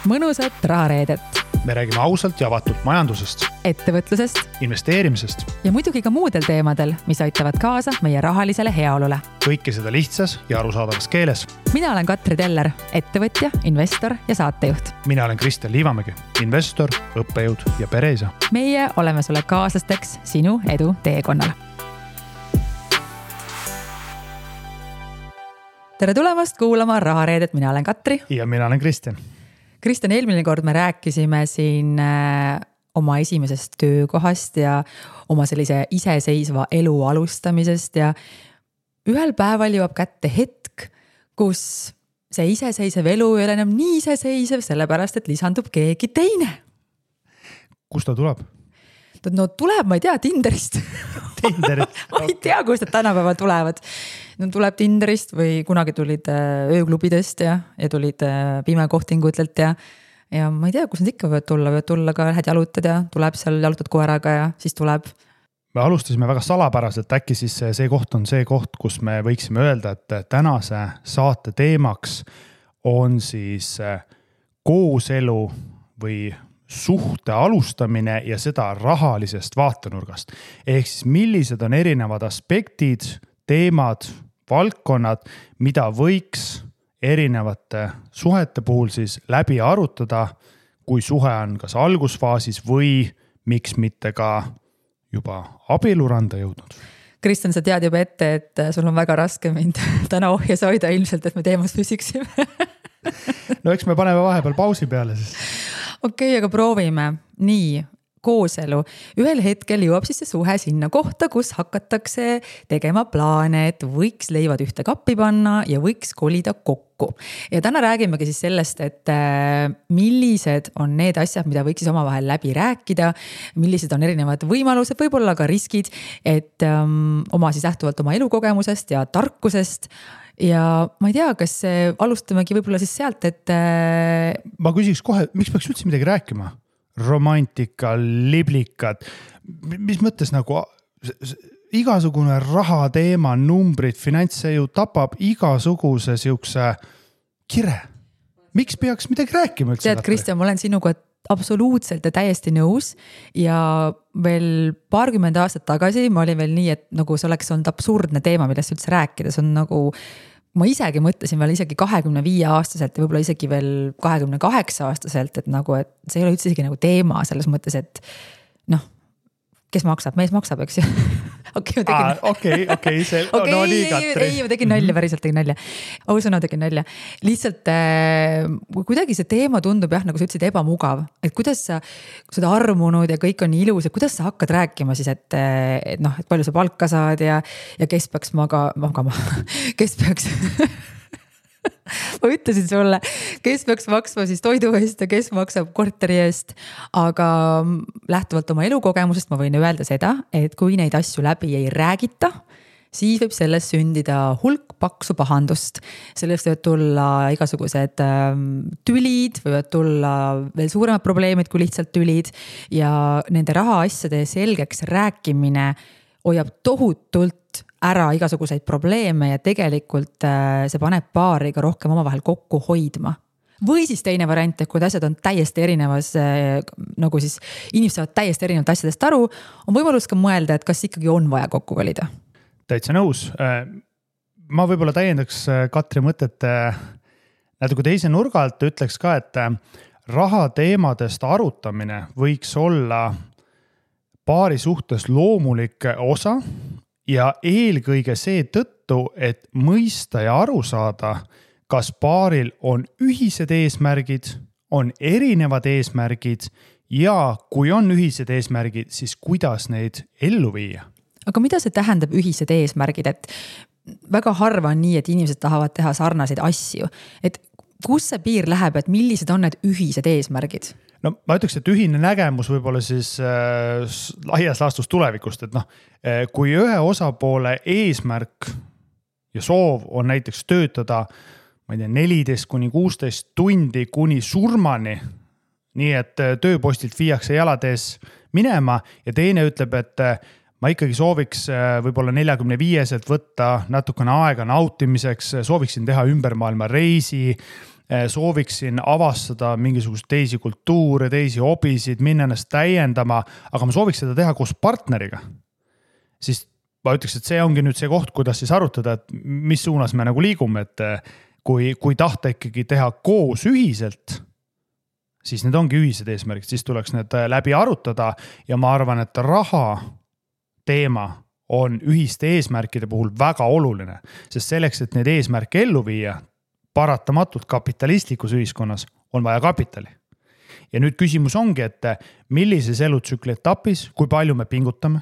mõnusat rahareedet. Me räägime ausalt ja avatult majandusest, ettevõtlusest investeerimisest ja muidugi ka muudel teemadel, mis aitavad kaasa meie rahalisele heaolule. kõike seda lihtsas ja arusaadavas keeles. Mina olen Katri Teller, ettevõtja, investor ja saatejuht. Mina olen Kristjan Liivamägi, investor, õppejõud ja pereisa. Meie oleme sulle kaaslasteks sinu edu teekonnal. Tere tulemast kuulama Rahareedet, mina olen Katri. Ja mina olen Kristjan. Kristjan, eelmine kord me rääkisime siin oma esimesest töökohast ja oma sellise iseseisva elu alustamisest ja ühel päeval jõuab kätte hetk, kus see iseseisev elu ei ole enam nii iseseisev, sellepärast et lisandub keegi teine. Kust ta tuleb? No tuleb, ma ei tea, Tinderist. Ma ei tea, kust nad tänapäeval tulevad. No tuleb Tinderist või kunagi tulid ööklubidest ja tulid pimekohtingutelt ja ma ei tea, kus nad ikka võivad tulla ka lähed jalutad ja tuleb seal jalutad koeraga ja siis tuleb. Me alustasime väga salapäraselt, äkki siis see koht on see koht, kus me võiksime öelda, et tänase saate teemaks on siis kooselu või suhte alustamine ja seda rahalisest vaatenurgast. Ehk siis millised on erinevad aspektid, teemad, valdkonnad, mida võiks erinevate suhete puhul siis läbi arutada, kui suhe on kas algusfaasis või miks mitte ka juba abieluranda jõudnud. Kristjan, sa tead juba ette, et sul on väga raske mind täna ohjes hoida ilmselt, et me teemas püsiksime. No eks me paneme vahepeal pausi peale siis. Okei, aga proovime. Nii, kooselu. Ühel hetkel jõuab siis see suhe sinna kohta, kus hakatakse tegema plaane, et võiks leivad ühte kappi panna ja võiks kolida kokku. Ja täna räägimegi siis sellest, et millised on need asjad, mida võiks siis omavahel läbi rääkida, millised on erinevad võimalused, võib-olla ka riskid, et oma siis lähtuvalt oma elukogemusest ja tarkusest. Ja ma ei tea, kas alustamegi võib-olla siis sealt, et ma küsiks kohe, miks peaks üldse midagi rääkima? Romantika, liblikad, mis mõttes nagu igasugune raha teema, numbrid, finants, see ju tapab igasuguse siukse kire. Miks peaks midagi rääkima? Tead, Kristjan, ma olen sinuga absoluutselt ja täiesti nõus ja veel 20 aastat tagasi ma olin veel nii, et nagu see oleks olnud absurdne teema, millest üldse rääkida. See on nagu, ma isegi mõtlesin veel isegi 25 aastaselt ja võib-olla isegi veel 28 aastaselt, et nagu, et see ei ole üldse isegi nagu teema selles mõttes, et noh, kes maksab, mees maksab, eks ju. Okei, see no nii, Katri. Ei, ma tegin nalja, päriselt tegin nalja. Ausõna tegin nalja. Lihtsalt kuidagi see teema tundub jah, nagu sa ütlesid, ebamugav. Et kuidas sa, kui seda armunud ja kõik on nii ilus, et kuidas sa hakkad rääkima siis, et palju sa palka saad ja kes peaks magama, kes peaks... Ma ütlesin sulle, kes peaks maksma siis toidu eest ja kes maksab korteri eest, aga lähtuvalt oma elukogemusest ma võin öelda seda, et kui neid asju läbi ei räägita, siis võib sellest sündida hulk paksu pahandust. Sellest võivad tulla igasugused tülid, võivad tulla veel suuremad probleemid kui lihtsalt tülid ja nende rahaasjade selgeks rääkimine hoiab tohutult ära igasuguseid probleeme ja tegelikult see paneb paari ka rohkem omavahel kokku hoidma. Või siis teine variant, et kui asjad on täiesti erinevas, nagu siis inimesed saavad täiesti erinevat asjadest aru, on võimalus ka mõelda, et kas ikkagi on vaja kokku kolida. Täitsa nõus. Ma võib-olla täiendaks Katri mõtet natuke teise nurga alt, ütleks ka, et raha teemadest arutamine võiks olla paari suhtes loomulik osa ja eelkõige see tõttu, et mõista ja aru saada, kas paaril on ühised eesmärgid, on erinevad eesmärgid ja kui on ühised eesmärgid, siis kuidas neid ellu viia. Aga mida see tähendab ühised eesmärgid, et väga harva on nii, et inimesed tahavad teha sarnaseid asju, et kus see piir läheb, et millised on need ühised eesmärgid? No ma ütleks, et ühine nägemus võib-olla siis laias laastus tulevikust, et kui ühe osapoole eesmärk ja soov on näiteks töötada, ma ei tea, 14-16 tundi kuni surmani, nii et tööpostilt viiakse jalatees minema ja teine ütleb, et ma ikkagi sooviks võib-olla 45-selt võtta natukene aega nautimiseks, sooviksin teha ümbermaailma reisi, sooviksin avastada mingisugust teisi kultuure, teisi hobisid, minna ennast täiendama, aga ma sooviks seda teha koos partneriga. Siis ma ütleks, et see ongi nüüd see koht, kuidas siis arutada, et mis suunas me nagu liigume, et kui tahta ikkagi teha koos ühiselt, siis need ongi ühised eesmärgid, siis tuleks need läbi arutada ja ma arvan, et raha teema on ühiste eesmärkide puhul väga oluline, sest selleks, et need eesmärke ellu viia, paratamatult kapitalistlikus ühiskonnas on vaja kapitali. Ja nüüd küsimus ongi, et millises elutsükli etapis, kui palju me pingutame,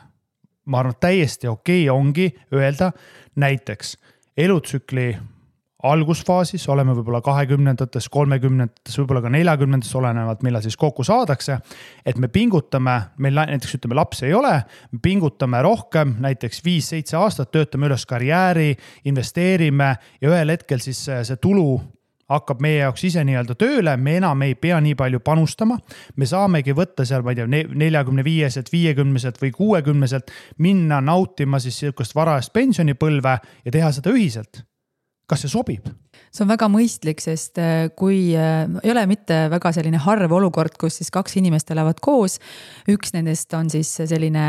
ma arvan, täiesti okei ongi öelda näiteks elutsükli algusfaasis, oleme võib-olla 20-ndates, 30-ndates, võib-olla ka 40-ndates olenevalt, millal siis kokku saadakse, et me pingutame, meil näiteks ütleme laps ei ole, me pingutame rohkem, näiteks 5-7 aastat, töötame üles karjääri, investeerime ja ühel hetkel siis see tulu hakkab meie jaoks ise nii-öelda tööle, me enam ei pea nii palju panustama, me saamegi võtta seal, ma ei tea, 45-selt, 50-selt või 60-selt, minna nautima siis sellist varajast pensionipõlve ja teha seda ühiselt. Kas see sobib? See on väga mõistlik, sest kui ei ole mitte väga selline harv olukord, kus siis 2 inimest elavad koos, üks nendest on siis selline,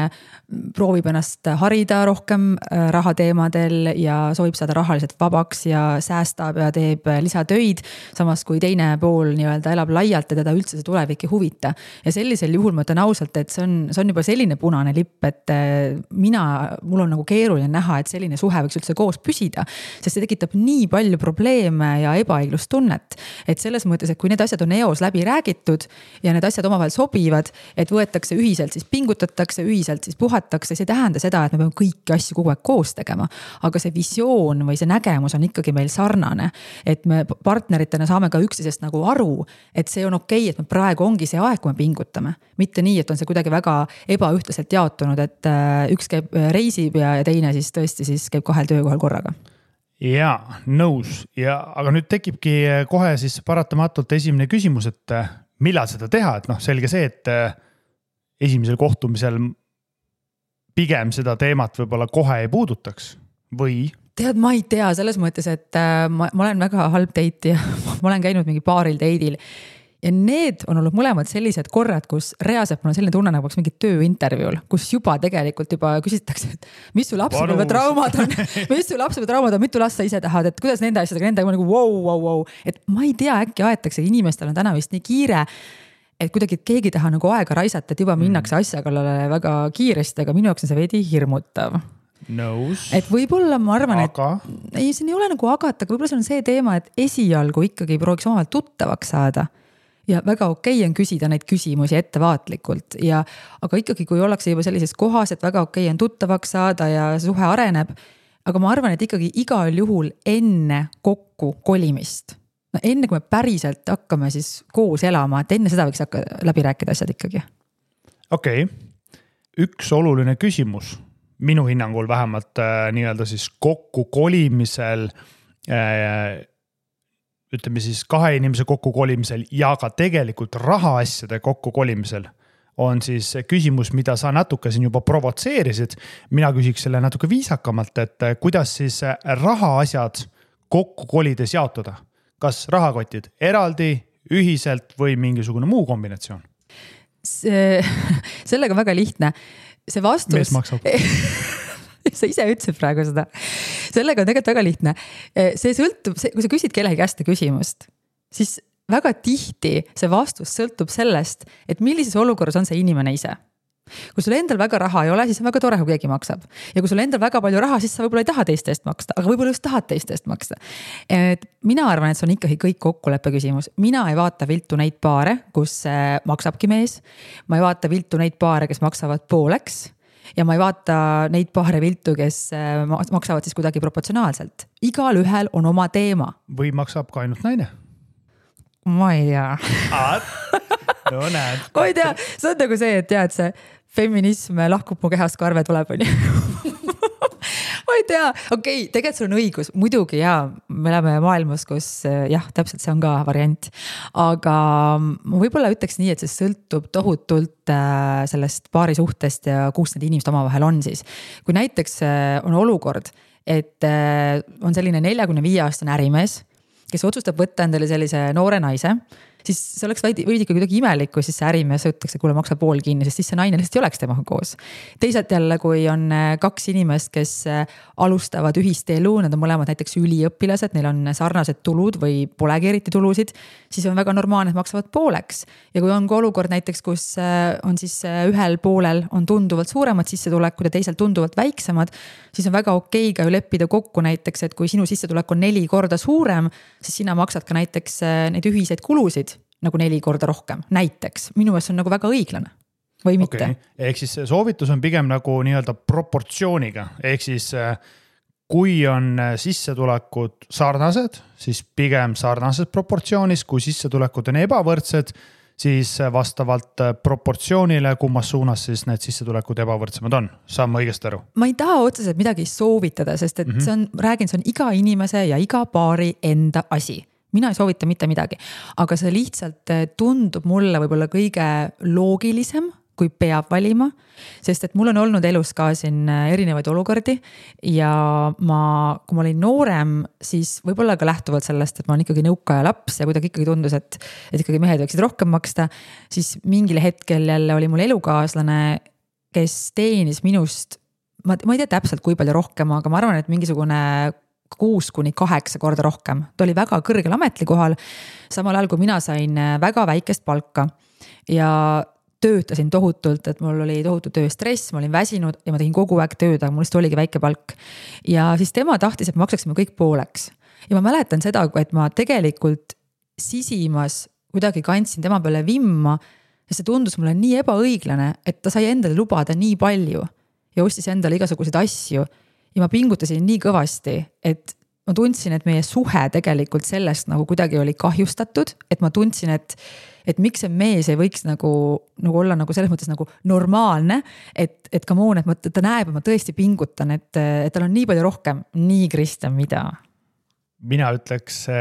proovib ennast harida rohkem rahateemadel ja soovib saada rahaliselt vabaks ja säästab ja teeb lisatöid, samas kui teine pool nii-öelda elab laialt ja teda üldse see tulevik ei huvita. Ja sellisel juhul ma ütlen ausalt, et see on juba selline punane lipp, et mul on nagu keeruline näha, et selline suhe võiks üldse koos püsida, sest see tekitab nii palju probleeme ja ebaõiglustunnet, et selles mõttes, et kui need asjad on eos läbi räägitud ja need asjad omavahel sobivad, et võetakse ühiselt, siis pingutatakse, ühiselt siis puhatakse, see tähenda seda, et me peame kõiki asju kogu aeg koos tegema, aga see visioon või see nägemus on ikkagi meil sarnane, et me partneritena saame ka üksteisest nagu aru, et see on okei, et me praegu ongi see aeg, kui me pingutame, mitte nii, et on see kuidagi väga ebaühtlaselt jaotunud, et üks käib reisib ja teine siis tõesti siis käib 2 töökohal korraga. Jaa, nõus. Aga nüüd tekibki kohe siis paratamatult esimene küsimus, et millal seda teha, et selge see, et esimesel kohtumisel pigem seda teemat võib-olla kohe ei puudutaks või? Tead, ma ei tea selles mõttes, et ma olen väga halb date ja ma olen käinud mingi paaril date'il ja need on olnud mõlemad sellised korrad, kus reaalselt mul on selline tunne nagu mingi tööintervjuul, kus juba tegelikult küsitakse, et mis su lapsepõlve traumad on, mitu last sa ise tahad, et kuidas nende asjadega, nendega nagu wow. Et ma ei tea, äkki aetakse, inimestel on täna vist nii kiire, et kuidagi keegi taha nagu aega raisata, et juba minnakse asja kallale väga kiiresti, aga minu jaoks on see veidi hirmutav. Nõus. Et võib-olla ma arvan, et ei, see ei ole nagu agata, aga võib-olla see on see teema, et esialgu ikkagi prooviks omavahel tuttavaks saada. Ja väga okei on küsida neid küsimusi ettevaatlikult aga ikkagi kui ollakse juba sellises kohas, et väga okei on tuttavaks saada ja suhe areneb, aga ma arvan, et ikkagi igal juhul enne kokku kolimist, enne kui me päriselt hakkame siis koos elama, et enne seda võiks hakka läbi rääkida asjad ikkagi. Okei. Üks oluline küsimus, minu hinnangul vähemalt nii-öelda siis kokku kolimisel ütleme siis 2 inimese kokku kolimisel ja ka tegelikult rahaasjade kokku kolimisel on siis küsimus, mida sa natuke siin juba provotseerisid. Mina küsiks selle natuke viisakamalt, et kuidas siis rahaasjad kokku kolides jaotada? Kas rahakotid eraldi, ühiselt või mingisugune muu kombinatsioon? Sellega väga lihtne. See vastus... Mees maksab. Sa ise ütlesid praegu seda. Sellega on tegelikult väga lihtne. See sõltub, kui sa küsid kellegi käest küsimust, siis väga tihti see vastus sõltub sellest, et millises olukorras on see inimene ise. Kui sul endal väga raha ei ole, siis on väga tore, kui keegi maksab. Ja kui sul endal väga palju raha, siis sa võib-olla ei taha teiste eest maksta, aga võib-olla just tahad teiste eest maksta. Et mina arvan, et see on ikkagi kõik kokkuleppe küsimus. Mina ei vaata viltu neid paare, kus maksabki mees. Ma ei vaata viltu neid paare, kes maksavad pooleks. Ja ma ei vaata neid paare viltu, kes maksavad siis kuidagi proportsionaalselt. Igal ühel on oma teema. Või maksab ka ainult naine? Ma ei tea. No näed. Ma ei tea, see on nagu see, et tead, see feminism lahkub mu kehast, kui arve tuleb. Ma ei tea, okei, tegelikult sul on õigus, muidugi me oleme maailmas, kus täpselt see on ka variant, aga ma võib-olla ütleks nii, et see sõltub tohutult sellest paari suhtest ja kus need inimesed omavahel on siis. Kui näiteks on olukord, et on selline 45-aastane ärimees kes otsustab võtta endale sellise noore naise, siis see oleks veidi kuidagi imelik, kui siis see ärimees ütleks, et kuule, maksa pool kinni, sest siis see naine lihtsalt ei oleks temaga koos. Teisalt jälle, kui on 2 inimest, kes alustavad ühist elu, nad on mõlemad näiteks üliõpilased, neil on sarnased tulud või polegi eriti tulusid, siis on väga normaalne, et maksavad pooleks. Ja kui on ka olukord näiteks, kus on siis ühel poolel on tunduvalt suuremad sissetulekud ja teisel tunduvalt väiksemad, siis on väga okei ka ju leppida kokku näiteks, et kui sinu sissetulek on 4 korda suurem, siis sina maksad ka näiteks neid ühiseid kulusid nagu 4 korda rohkem, näiteks. Minu meelest on nagu väga õiglane või mitte. Okay. Ehk siis soovitus on pigem nagu nii-öelda proportsiooniga. Ehk siis kui on sissetulekud sarnased, siis pigem sarnases proportsioonis, kui sissetulekud on ebavõrdsed, siis vastavalt proportsioonile, kummas suunas siis need sissetulekud ebavõrdsemad on. Saan ma õigesti aru? Ma ei taha otseselt midagi soovitada, sest et see on iga inimese ja iga paari enda asi. Mina ei soovita mitte midagi, aga see lihtsalt tundub mulle võib-olla kõige loogilisem, kui peab valima, sest et mul on olnud elus ka siin erinevaid olukordi ja kui ma olin noorem, siis võib-olla ka lähtuvalt sellest, et ma olen ikkagi nõukaja laps ja kuidagi ikkagi tundus, et ikkagi mehed võiksid rohkem maksta, siis mingil hetkel jälle oli mul elukaaslane, kes teenis minust, ma ei tea täpselt kui palju rohkem, aga ma arvan, et mingisugune 6-8 korda rohkem. Ta oli väga kõrgel ametlikohal, samal ajal kui mina sain väga väikest palka ja töötasin tohutult, et mul oli tohutu tööstress, ma olin väsinud ja ma tegin kogu aeg tööd, aga mul lihtsalt oligi väike palk. Ja siis tema tahtis, et me maksaksime kõik pooleks. Ja ma mäletan seda, et ma tegelikult sisimas kuidagi kandsin tema peale vimma ja see tundus mulle nii ebaõiglane, et ta sai endale lubada nii palju ja ostis endale igasuguseid asju. Ja ma pingutasin nii kõvasti, et ma tundsin, et meie suhe tegelikult sellest nagu kuidagi oli kahjustatud, et ma tundsin, et miks see mees ei võiks nagu olla nagu selles mõttes nagu normaalne, et come on, et ta näeb, et ma tõesti pingutan, et tal on nii palju rohkem. Nii, Kristjan, mida? Mina ütleks,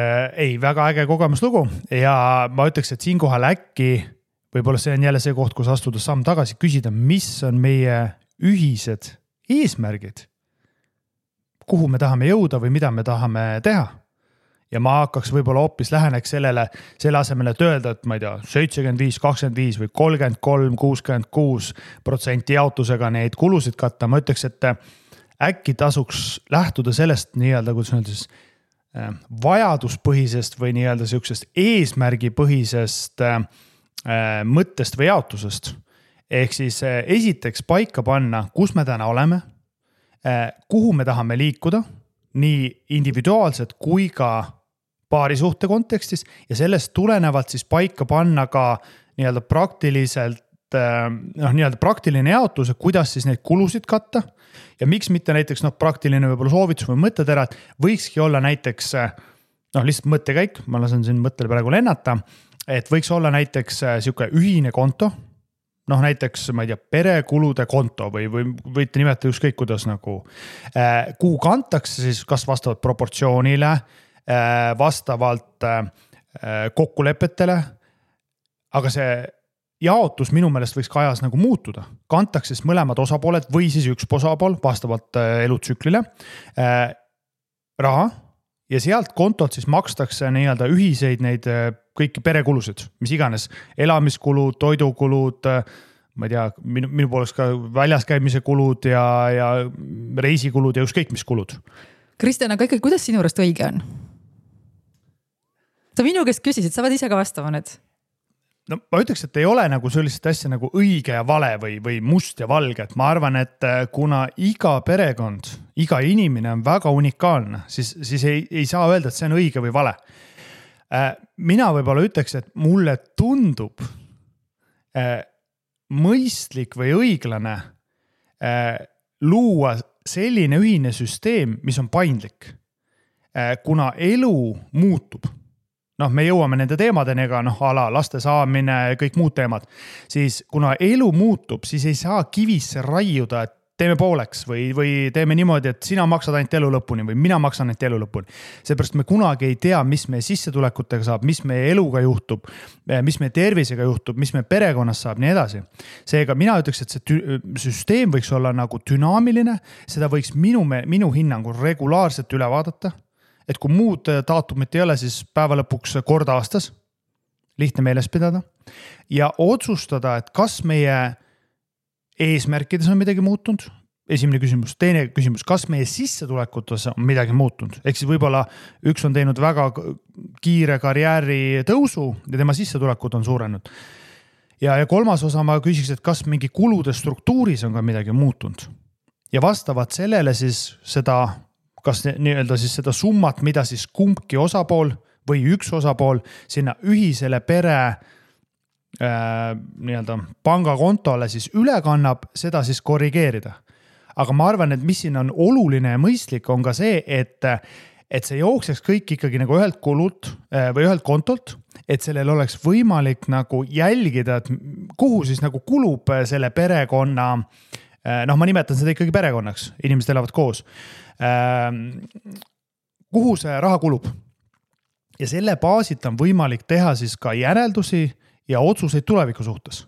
väga äge kogemuslugu ja ma ütleks, et siinkohal äkki võib-olla see on jälle see koht, kus astuda samm tagasi, küsida, mis on meie ühised eesmärgid, kuhu me tahame jõuda või mida me tahame teha. Ja ma hakkaks võib-olla hoopis läheneks selle asemele, et öelda, et ma ei tea, 75-25 või 33-66% jaotusega neid kulusid katta. Ma ütleks, et äkki tasuks lähtuda sellest nii-öelda, kuidas öelda siis vajaduspõhisest või nii-öelda siuksest eesmärgipõhisest mõttest või jaotusest. Ehk siis esiteks paika panna, kus me täna oleme, kuhu me tahame liikuda, nii individuaalselt kui ka paarisuhte kontekstis ja sellest tulenevalt siis paika panna ka nii-öelda praktiliselt, nii-öelda praktiline jaotus, kuidas siis neid kulusid katta ja miks mitte näiteks praktiline võib-olla soovitus või mõttetera, et võikski olla näiteks lihtsalt mõttekäik, ma lasen siin mõttele praegu lennata, et võiks olla näiteks siuke ühine konto, näiteks, ma ei tea, perekulude konto või võite nimetada ükskõik kuidas nagu, kuhu kantakse siis kas vastavalt proportsioonile, vastavalt kokkulepetele, aga see jaotus minu meelest võiks ka ajas nagu muutuda. Kantakse siis mõlemad osapooled või siis üks osapool vastavalt elutsüklile raha ja sealt kontolt siis makstakse nii-öelda ühiseid neid kõiki perekulusid, mis iganes, elamiskulud, toidukulud, ma ei tea, minu poolest ka väljas käimise kulud ja reisikulud ja ükskõik mis kulud. Kristjan, aga ikkagi, kuidas sinu juurest õige on? Sa minu käest küsisid, sa võid ise ka vastama nüüd. No ma ütleks, et ei ole nagu sellist asja nagu õige ja vale või must ja valge, et ma arvan, et kuna iga perekond, iga inimene on väga unikaalne, siis ei saa öelda, et see on õige või vale. Mina võib-olla ütleks, et mulle tundub mõistlik või õiglane luua selline ühine süsteem, mis on paindlik, kuna elu muutub. Me jõuame nende teemadeni, aga ala laste saamine ja kõik muud teemad, siis kuna elu muutub, siis ei saa kivisse raiuda, et teeme pooleks või teeme niimoodi, et sina maksad ainult elu lõpuni või mina maksan ainult elu lõpuni. Seepärast me kunagi ei tea, mis meie sissetulekutega saab, mis meie eluga juhtub, mis meie tervisega juhtub, mis meie perekonnas saab, nii edasi. Seega mina ütleks, et see süsteem võiks olla nagu dünaamiline, seda võiks minu hinnangul regulaarselt üle vaadata. et kui muud daatumit ei ole, siis päeva lõpuks kord aastas, lihtne meeles pidada ja otsustada, et kas meie eesmärkides on midagi muutunud. Esimene küsimus. Teine küsimus, kas meie sissetulekutes on midagi muutunud? Ehk siis võib-olla üks on teinud väga kiire karjääri tõusu ja tema sissetulekud on suurenud. Ja kolmas osa ma küsiks, et kas mingi kulude struktuuris on ka midagi muutunud. Ja vastavalt sellele siis seda, kas nii-öelda siis seda summat, mida siis kumbki osapool või üks osapool sinna ühisele pere nii-öelda pangakontole siis üle kannab, seda siis korrigeerida. Aga ma arvan, et mis siin on oluline ja mõistlik on ka see, et see jookseks kõik ikkagi nagu ühelt kulult või ühelt kontolt, et sellel oleks võimalik nagu jälgida, et kuhu siis nagu kulub selle perekonna, ma nimetan seda ikkagi perekonnaks, inimesed elavad koos, kuhu see raha kulub. Ja selle baasit on võimalik teha siis ka järeldusi ja otsuseid tuleviku suhtes.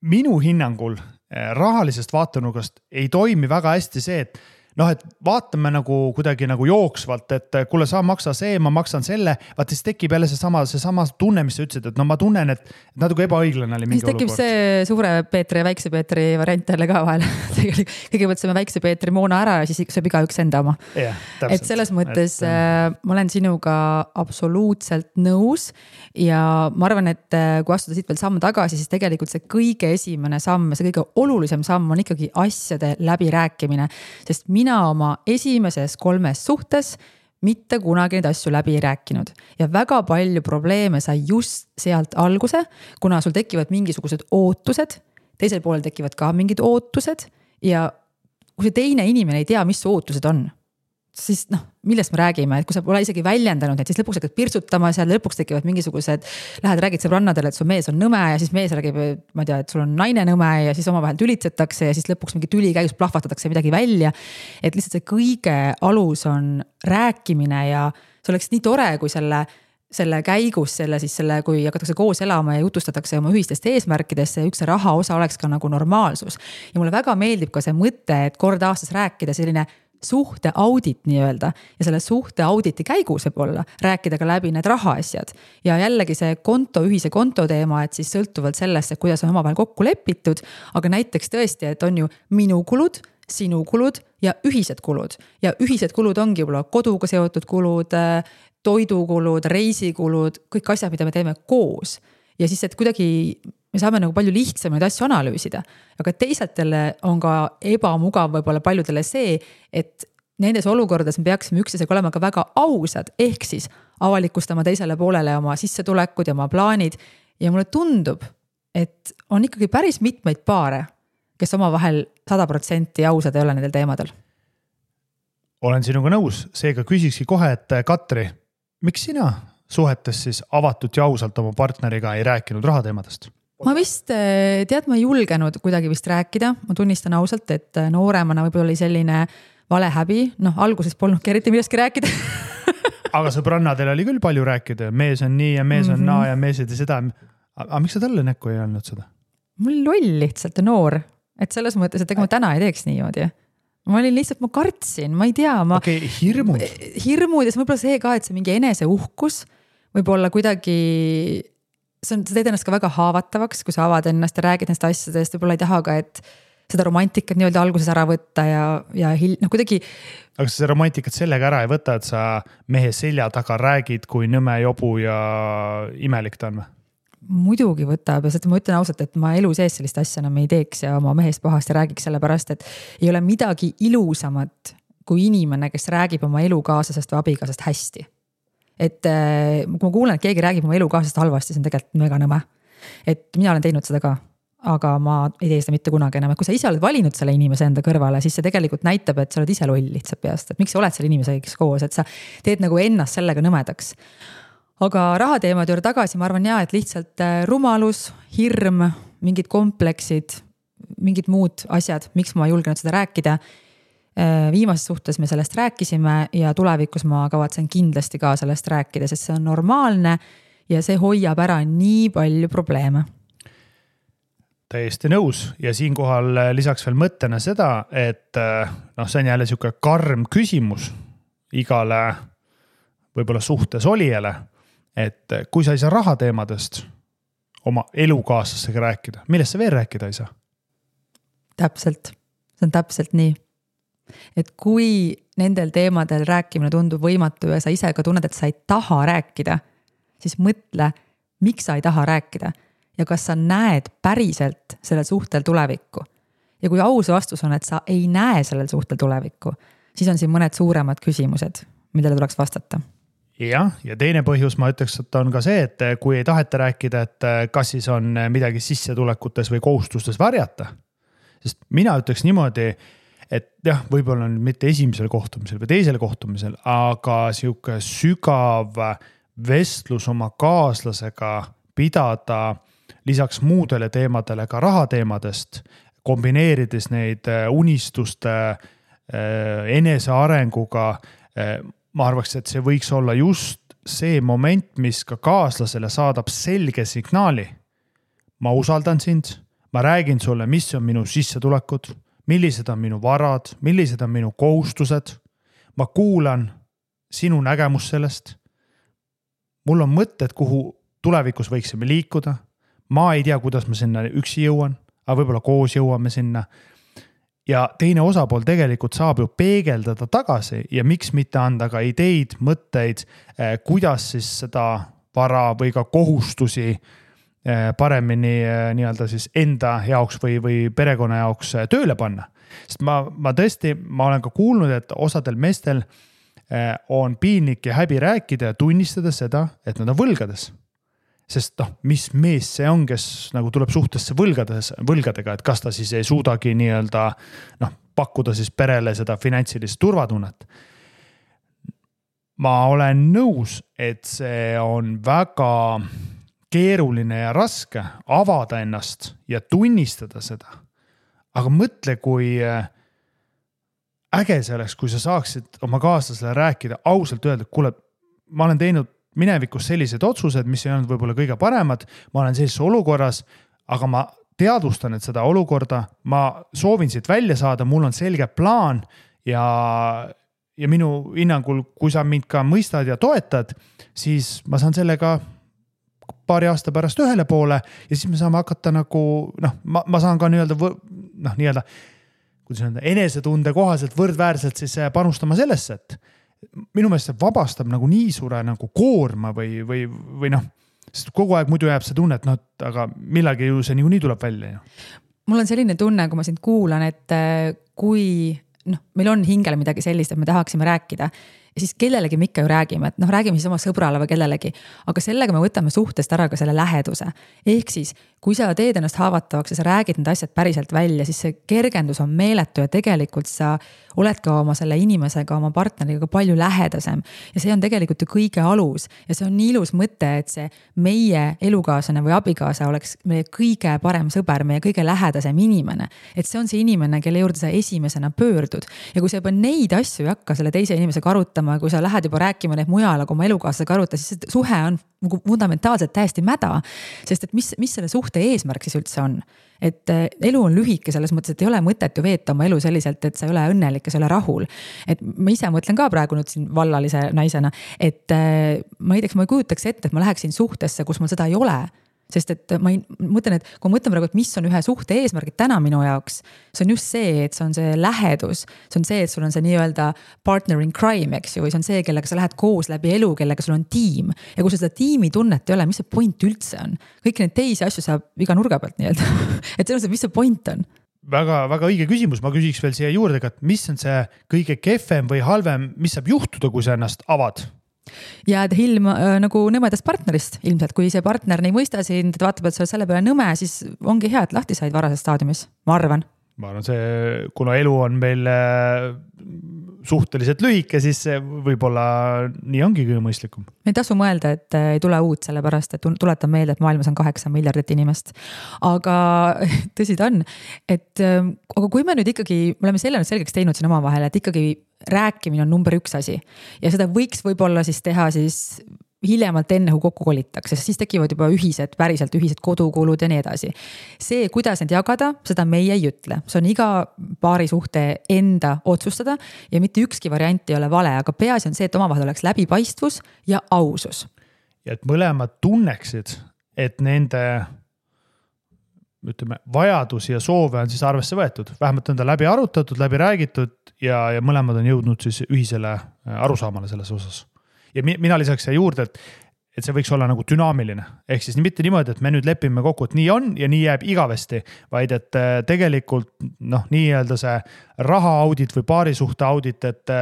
Minu hinnangul rahalisest vaatenurgast ei toimi väga hästi see, et et vaatame nagu kuidagi nagu jooksvalt, et kuule sa maksa see, ma maksan selle, vaat siis tekib jälle seesama tunne, mis sa ütlesid, et ma tunnen, et natuke ebaõiglane oli mingi olukord. Siis tekib see suure Peetri ja väikse Peetri variant jälle ka vahel. Kõigepealt saame väikse Peetri moona ära ja siis sööb igaüks enda oma. Et selles mõttes ma olen sinuga absoluutselt nõus ja ma arvan, et kui astuda siit veel samm tagasi, siis tegelikult see kõige esimene samm, see kõige olulisem samm on ikkagi asjade läbirääkimine, sest mina oma esimeses 3 suhtes mitte kunagi neid asju läbi ei rääkinud. Ja väga palju probleeme sai just sealt alguse, kuna sul tekivad mingisugused ootused, teisel poolel tekivad ka mingid ootused ja kui see teine inimene ei tea, mis ootused on, siis millest me räägime, et kui sa pole isegi väljendanud, et siis lõpuks hakkad pirtsutama seal, lõpuks tekivad mingisugused, lähed räägid sõbrannadele, et su mees on nõme ja siis mees räägib, ma ei tea, et sul on naine nõme ja siis omavahel tülitsetakse ja siis lõpuks mingi tüli käigus plahvatatakse midagi välja. Et lihtsalt see kõige alus on rääkimine ja see oleks nii tore, kui selle käigus, kui hakatakse koos elama ja jutustatakse oma ühistest eesmärkidesse ja üks raha osa oleks ka nagu normaalsus. Ja mulle väga meeldib ka see mõte, et kord aastas rääkida selline suhte audit nii öelda ja selle suhte auditi käigus võib olla rääkida ka läbi need rahaasjad ja jällegi see ühise konto teema, et siis sõltuvalt sellest, et kuidas on omavahel kokku lepitud, aga näiteks tõesti, et on ju minu kulud, sinu kulud ja ühised kulud ongi võib-olla koduga seotud kulud, toidukulud, reisikulud, kõik asjad, mida me teeme koos ja siis, et kuidagi me saame nagu palju lihtsamaid asju analüüsida, aga teisatele on ka ebamugav võib-olla paljudele see, et nendes olukordades me peaksime üksteisega olema ka väga ausad, ehk siis avalikustama teisele poolele oma sissetulekud ja oma plaanid ja mulle tundub, et on ikkagi päris mitmeid paare, kes omavahel 100% ausad ei ole nendel teemadel. Olen sinuga nõus, seega küsikski kohe, et Katri, miks sina suhetes siis avatud ja ausalt oma partneriga ei rääkinud rahateemadest? Ma vist, ma ei julgenud kuidagi vist rääkida, ma tunnistan ausalt, et nooremana võib-olla oli selline valehäbi, alguses polnudki eriti millestki rääkida. Aga sõbrannadel oli küll palju rääkida, mees on nii ja mees on naa ja mees ei tee seda. Aga miks sa talle näkku ei olnud seda? Mul loll lihtsalt ja noor, et selles mõttes, et ega ma täna ei teeks niimoodi. Ma olin lihtsalt, ma kartsin, ma ei tea. Hirmud ja see võib-olla see ka, et see mingi enese uhkus võib-olla kuidagi sa teed ennast ka väga haavatavaks, kui sa avad ennast ja räägid nendest asjadest, võib-olla ei taha ka, et seda romantikat nii-öelda alguses ära võtta ja kuidagi. Aga sa romantikat sellega ära ei võta, et sa mehe selja taga räägid, kui nõme jobu ja imelik ta on või? Muidugi võtab ja ma ütlen ausalt, et ma elu sees sellist asja enam ei teeks ja oma mehest pahast ja räägiks selle pärast, et ei ole midagi ilusamat kui inimene, kes räägib oma elukaaslasest või abikaasast hästi. Et kui ma kuulen, et keegi räägib oma elukaaslasest halvasti, see on tegelikult mega nõme. Et mina olen teinud seda ka, aga ma ei tee seda mitte kunagi enam. Et kui sa ise oled valinud selle inimese enda kõrvale, siis see tegelikult näitab, et sa oled ise loll lihtsalt peast. Et miks sa oled selle inimesega koos, et sa teed nagu ennast sellega nõmedaks. Aga rahateemad juurde tagasi, ma arvan et lihtsalt rumalus, hirm, mingid kompleksid, mingid muud asjad, miks ma julgenud seda rääkida. Viimases suhtes me sellest rääkisime ja tulevikus ma kavatsen kindlasti ka sellest rääkida, sest see on normaalne ja see hoiab ära nii palju probleeme. Täiesti nõus ja siinkohal lisaks veel mõttena seda, et see on jälle siuke karm küsimus igale võib-olla suhtes olijale, et kui sa ei saa rahateemadest oma elukaaslasega rääkida, millest sa veel rääkida ei saa? Täpselt, see on täpselt nii. Et kui nendel teemadel rääkimine tundub võimatu ja sa ise ka tunned, et sa ei taha rääkida, siis mõtle, miks sa ei taha rääkida ja kas sa näed päriselt sellel suhtel tulevikku. Ja kui aus vastus on, et sa ei näe sellel suhtel tulevikku, siis on siin mõned suuremad küsimused, millele tuleks vastata. Ja teine põhjus ma ütleks, et on ka see, et kui ei taheta rääkida, et kas siis on midagi sissetulekutes või kohustustes varjata. Sest mina ütleks niimoodi, et jah, võib-olla on mitte esimesel kohtumisel või teisel kohtumisel, aga sihuke sügav vestlus oma kaaslasega pidada lisaks muudele teemadele ka rahateemadest, kombineerides neid unistuste enesearenguga. Ma arvaks, et see võiks olla just see moment, mis ka kaaslasele saadab selge signaali. Ma usaldan sind, ma räägin sulle, mis on minu sissetulekud, millised on minu varad, millised on minu kohustused. Ma kuulan sinu nägemus sellest. Mul on mõtted, kuhu tulevikus võiksime liikuda. Ma ei tea, kuidas ma sinna üksi jõuan, aga võib-olla koos jõuame sinna. Ja teine osapool tegelikult saab ju peegeldada tagasi ja miks mitte anda ka ideid, mõtteid, kuidas siis seda vara või ka kohustusi paremini nii-öelda siis enda jaoks või perekonna jaoks tööle panna. Sest ma olen ka kuulnud, et osadel meestel on piinlik ja häbi rääkida ja tunnistada seda, et nad on võlgades. Sest mis mees see on, kes nagu tuleb suhtesse võlgadega, et kas ta siis ei suudagi nii-öelda pakkuda siis perele seda finantsilist turvatunnet. Ma olen nõus, et see on väga keeruline ja raske avada ennast ja tunnistada seda. Aga mõtle, kui äge see oleks, kui sa saaksid oma kaaslasele rääkida, ausalt öelda, kuule, ma olen teinud minevikus sellised otsused, mis ei olnud võib-olla kõige paremad, ma olen sellises olukorras, aga ma teadvustan, et seda olukorda, ma soovin siit välja saada, mul on selge plaan ja minu hinnangul, kui sa mind ka mõistad ja toetad, siis ma saan sellega paari aasta pärast ühele poole ja siis me saame hakata nagu, ma saan ka nii-öelda enesetunde kohaselt võrdväärselt siis panustama sellesse, et minu meelest see vabastab nagu nii suure nagu koorma või sest kogu aeg muidu jääb see tunne, et aga millalgi ju see nii tuleb välja. Mul on selline tunne, kui ma sind kuulan, et kui meil on hingele midagi sellist, et me tahaksime rääkida ja siis kellelegi me ikka ju räägime, et räägime siis oma sõbrale või kellelegi, aga sellega me võtame suhtest ära ka selle läheduse. Ehk siis, kui sa teed ennast haavatavaks ja sa räägid need asjad päriselt välja, siis see kergendus on meeletu ja tegelikult sa oled ka oma selle inimesega, oma partneriga palju lähedasem. Ja see on tegelikult ju kõige alus ja see on nii ilus mõte, et see meie elukaaslane või abikaasa oleks meie kõige parem sõber, meie kõige lähedasem inimene. Et see on see inimene, kelle juurde sa esimesena pöördud. Ja kui sa juba neid asju ei hakka selle teise inimesega arutama, kui sa lähed juba rääkima neid mujal, aga oma elukaaslasega aruta, siis suhe on fundamentaalselt täiesti mäda. Sest et mis selle suhte eesmärk siis üldse on? Et elu on lühike selles mõttes, et ei ole mõtet ju veeta oma elu selliselt, et sa ei ole õnnelik ja sa ei ole rahul. Et ma ise mõtlen ka praegu nüüd siin vallalise naisena, et ma ei kujutaks ette, et ma läheksin suhtesse, kus mul seda ei ole. Sest et ma mõtlen, et kui mõtlen praegu, et mis on ühe suhte eesmärgid täna minu jaoks, see on just see, et see on see lähedus, see on see, et sul on see nii-öelda partner in crime, eks ju, või see on see, kellega sa lähed koos läbi elu, kellega sul on tiim. Ja kui seda tiimi tunnet ei ole, mis see point üldse on? Kõik need teisi asju saab iga nurga pealt nii-öelda. Et see on see, mis see point on? Väga, väga õige küsimus, ma küsiks veel siia juurde, et mis on see kõige kehvem või halvem, mis saab juhtuda, kui sa ennast avad? Jääd hilm nagu nõmedast partnerist ilmselt, kui see partner ei mõista sind, et vaatab, et sa oled selle peale nõme, siis ongi hea, et lahti said varases staadiumis, ma arvan. Ma arvan, kuna elu on meil suhteliselt lühike, siis võib-olla nii ongi kõige mõistlikum. Ei tasu mõelda, et ei tule uut sellepärast, et tuletan meelde, et maailmas on 8 miljardit inimest. Aga tõsi ta on, et aga kui me nüüd ikkagi, me oleme selle nüüd selgeks teinud siin oma vahel, et ikkagi rääkimine on number 1 asi ja seda võiks võib-olla siis teha siis hiljemalt enne, kui kokku kolitakse, siis tekivad juba päriselt ühised kodukulud ja nii edasi. See, kuidas need jagada, seda meie ei ütle. See on iga paari suhte enda otsustada ja mitte ükski variant ei ole vale, aga peaasi on see, et omavahel oleks läbipaistvus ja ausus. Ja et mõlemad tunneksid, et nende vajadusi ja soove on siis arvesse võetud. Vähemalt on ta läbi arutatud, läbi räägitud ja mõlemad on jõudnud siis ühisele arusaamale selles osas. Ja mina lisaks siia juurde, et see võiks olla nagu dünaamiline. Ehk siis mitte niimoodi, et me nüüd lepime kokku, et nii on ja nii jääb igavesti, vaid et tegelikult nii-öelda see raha audit või paarisuhte audit, et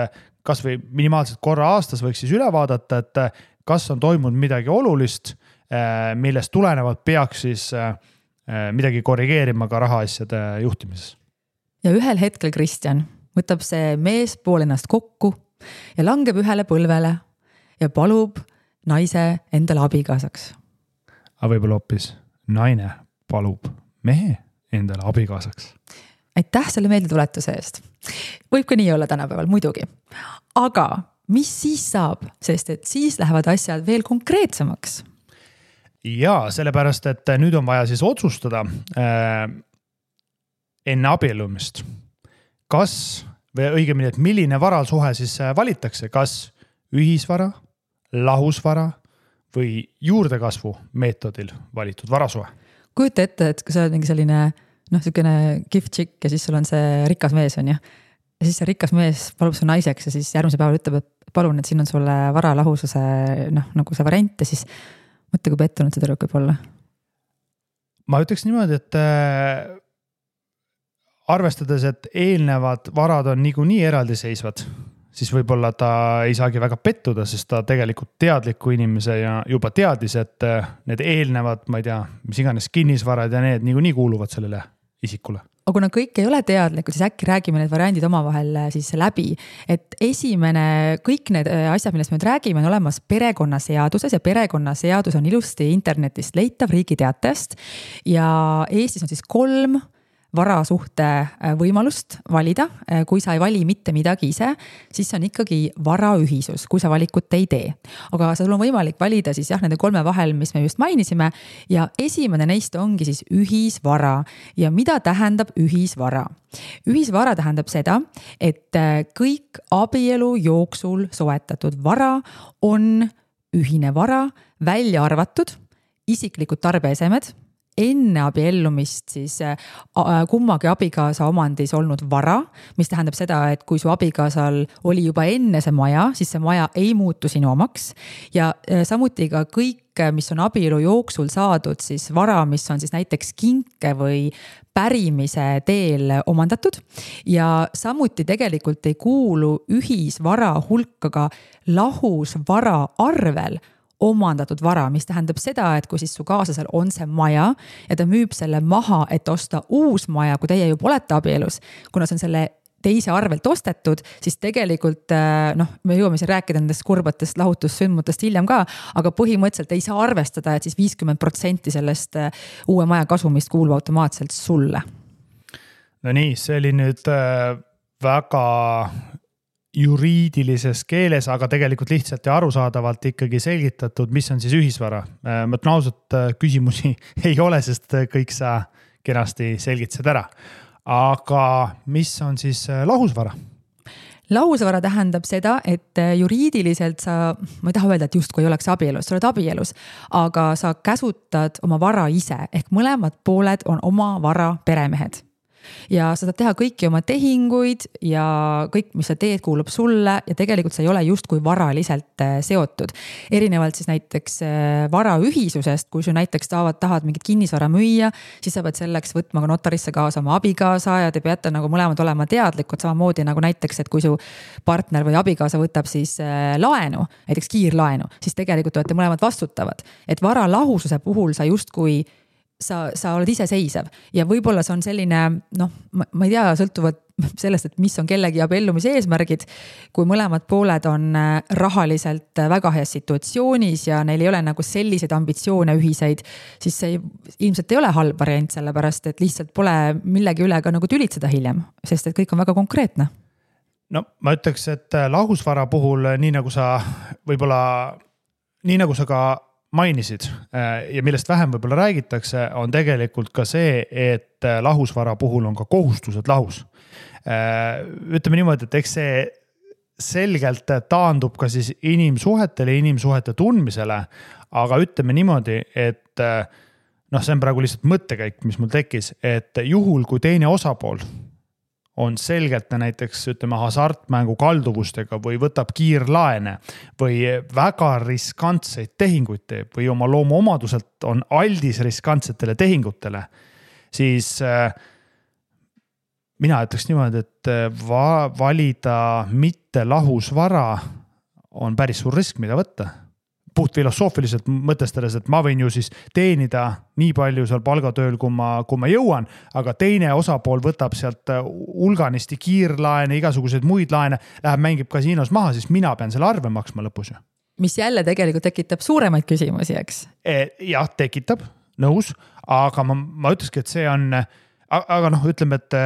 kas või minimaalselt korra aastas võiks siis üle vaadata, et kas on toimunud midagi olulist, millest tulenevalt peaks siis midagi korrigeerima ka rahaasjade juhtimises. Ja ühel hetkel Kristjan võtab see mees pool ennast kokku ja langeb ühele põlvele ja palub naise endale abikaasaks. Aga võib-olla hoopis naine palub mehe endale abikaasaks. Aitäh selle meeldetuletuse eest. Võib ka nii olla tänapäeval, muidugi. Aga mis siis saab, sest et siis lähevad asjad veel konkreetsemaks? Ja sellepärast, et nüüd on vaja siis otsustada enne abiellumist. Kas, või õigemini, et milline varasuhe siis valitakse, kas ühisvara, lahusvara või juurdekasvu meetodil valitud varasuhe? Kujuta ette, et kui sa oled mingi selline selline gift chick ja siis sul on see rikas mees on ja siis see rikas mees palub su naiseks ja siis järgmise päeval ütleb, et palun, et siin on sulle vara lahususe nagu see variant ja siis mõtle, kui pettunud see tüdruk võib olla. Ma ütleks niimoodi, et arvestades, et eelnevad varad on niikuinii eraldiseisvad, siis võib-olla ta ei saagi väga pettuda, sest ta tegelikult teadliku inimese ja juba teadis, et need eelnevad, ma ei tea, mis iganes kinnisvarad ja need niikuinii kuuluvad sellele isikule. Aga kuna kõik ei ole teadlikud, siis äkki räägime need variandid omavahel siis läbi. Et kõik need asjad, millest me nüüd räägime, on olemas perekonnaseaduses ja perekonnaseadus on ilusti internetist leitav Riigi Teatajast ja Eestis on siis 3 varasuhte võimalust valida. Kui sa ei vali mitte midagi ise, siis on ikkagi varaühisus, kui sa valikut ei tee. Aga sul on võimalik valida siis nende 3 vahel, mis me just mainisime ja esimene neist ongi siis ühisvara. Ja mida tähendab ühisvara? Ühisvara tähendab seda, et kõik abielu jooksul soetatud vara on ühine vara, välja arvatud isiklikud tarbeesemed, enne abiellumist siis kummagi abikaasa omandis olnud vara, mis tähendab seda, et kui su abikaasal oli juba enne see maja, siis see maja ei muutu sinu omaks ja samuti ka kõik, mis on abielu jooksul saadud, siis vara, mis on siis näiteks kinke või pärimise teel omandatud ja samuti tegelikult ei kuulu ühisvara hulka ka lahusvara arvel omandatud vara, mis tähendab seda, et kui siis su kaaslasel on see maja ja ta müüb selle maha, et osta uus maja, kui teie juba olete abielus, kuna see on selle teise arvelt ostetud, siis tegelikult me jõuame siin rääkida nendest kurbatest lahutussündmutest hiljem ka, aga põhimõtteliselt ei saa arvestada, et siis 50% sellest uue maja kasumist kuulub automaatselt sulle. No nii, see oli nüüd väga juriidilises keeles, aga tegelikult lihtsalt ja arusaadavalt ikkagi selgitatud, mis on siis ühisvara. Ma ütlen ausalt, küsimusi ei ole, sest kõik sa kenasti selgitasid ära. Aga mis on siis lahusvara? Lahusvara tähendab seda, et juriidiliselt sa, ma ei taha öelda, et justkui ei oleks abielus, sa oled abielus, aga sa käsutad oma vara ise, ehk mõlemad pooled on oma vara peremehed. Ja sa saad teha kõiki oma tehinguid ja kõik, mis sa teed, kuulub sulle ja tegelikult sa ei ole justkui varaliselt seotud. Erinevalt siis näiteks varaühisusest, kui sa näiteks tahad mingit kinnisvara müüa, siis sa pead selleks võtma ka notarisse kaasa oma abikaasa ja te peate nagu mõlemad olema teadlikud, samamoodi nagu näiteks, et kui su partner või abikaasa võtab siis laenu, näiteks kiirlaenu, siis tegelikult olete mõlemad vastutavad. Et vara lahususe puhul sa justkui sa oled iseseisev ja võib-olla see on selline, ma ei tea, sõltuvad sellest, et mis on kellegi abiellumise eesmärgid, kui mõlemad pooled on rahaliselt väga heas situatsioonis ja neil ei ole nagu selliseid ambitsioone ühiseid, siis see ilmselt ei ole halb variant, sellepärast et lihtsalt pole millegi üle ka nagu tülitseda hiljem, sest et kõik on väga konkreetne. No ma ütleks, et lahusvara puhul, nii nagu sa võib-olla nii nagu sa ka mainisid ja millest vähem võib-olla räägitakse, on tegelikult ka see, et lahusvara puhul on ka kohustused lahus. Ütleme niimoodi, et eks see selgelt taandub ka siis inimsuhetele, inimsuhete tundmisele, aga ütleme niimoodi, et see on praegu lihtsalt mõttekäik, mis mul tekkis, et juhul, kui teine osapool on selgelt näiteks hasartmängu kalduvustega või võtab kiirlaene või väga riskantseid tehinguid teeb või oma loomuomaduselt on aldis riskantsetele tehingutele, siis mina ütleks niimoodi, et valida mitte lahusvara on päris suur risk, mida võtta. Puht filosoofiliselt mõtestades, et ma võin ju siis teenida nii palju seal palgatööl, kui ma jõuan, aga teine osapool võtab sealt hulganisti kiirlaene, igasuguseid muid laene, läheb mängib kasiinos maha, siis mina pean selle arve maksma lõpus ju. Mis jälle tegelikult tekitab suuremaid küsimusi, eks? Jah, tekitab, nõus, aga ma ütleski, et see on, aga ütleme, et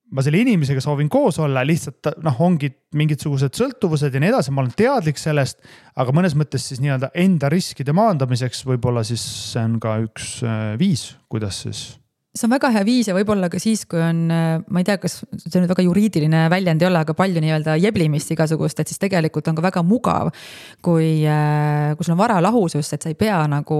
ma selle inimesega soovin koos olla, lihtsalt ongi mingisugused sõltuvused ja nii edasi, ma olen teadlik sellest, aga mõnes mõttes siis nii-öelda enda riskide maandamiseks võib-olla siis see on ka üks viis, kuidas siis. See on väga hea viis ja võib-olla ka siis, kui on, ma ei tea, kas see nüüd väga juriidiline väljend ei ole, aga palju nii-öelda jeblimist igasugust, et siis tegelikult on ka väga mugav, kui sul on vara lahusus, et sa ei pea nagu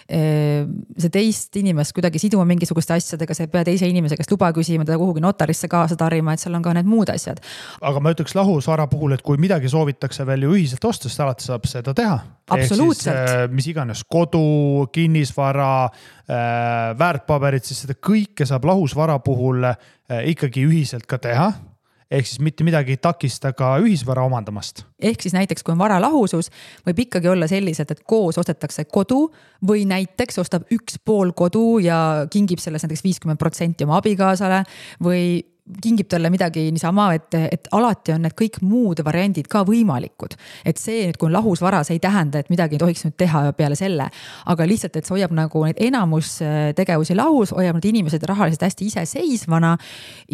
see teist inimest kuidagi siduma mingisuguste asjadega, sa ei pea teise inimese käest luba küsima, teda kuhugi notarisse kaasa tarima, et seal on ka need muud asjad. Aga ma ütleks lahusvara puhul, et kui midagi soovitakse veel ju ühiselt osta, siis alati saab seda teha. Absoluutselt. Mis iganes kodu, kinnisvara, väärtpaberid, siis seda kõike saab lahusvara puhul ikkagi ühiselt ka teha. Ehk siis mitte midagi ei takista ka ühisvara omandamast. Ehk siis näiteks, kui on vara lahusus, võib ikkagi olla selliselt, et koos ostetakse kodu või näiteks ostab üks pool kodu ja kingib selles näiteks 50% oma abikaasale või kingib talle midagi niisama, et alati on need kõik muud variandid ka võimalikud. Et see nüüd, kui on lahusvara, see ei tähenda, et midagi ei tohiks nüüd teha peale selle. Aga lihtsalt, et see hoiab nagu neid enamus tegevusi lahus, hoiab need inimesed rahaliselt hästi iseseisvana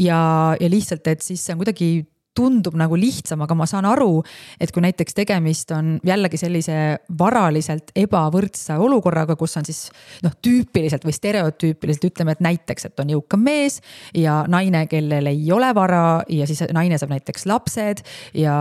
ja lihtsalt, et siis see on kuidagi tundub nagu lihtsam, aga ma saan aru, et kui näiteks tegemist on jällegi sellise varaliselt ebavõrdse olukorraga, kus on siis tüüpiliselt või stereotüüpiliselt ütleme, et näiteks, et on jõukam mees ja naine, kellel ei ole vara ja siis naine saab näiteks lapsed ja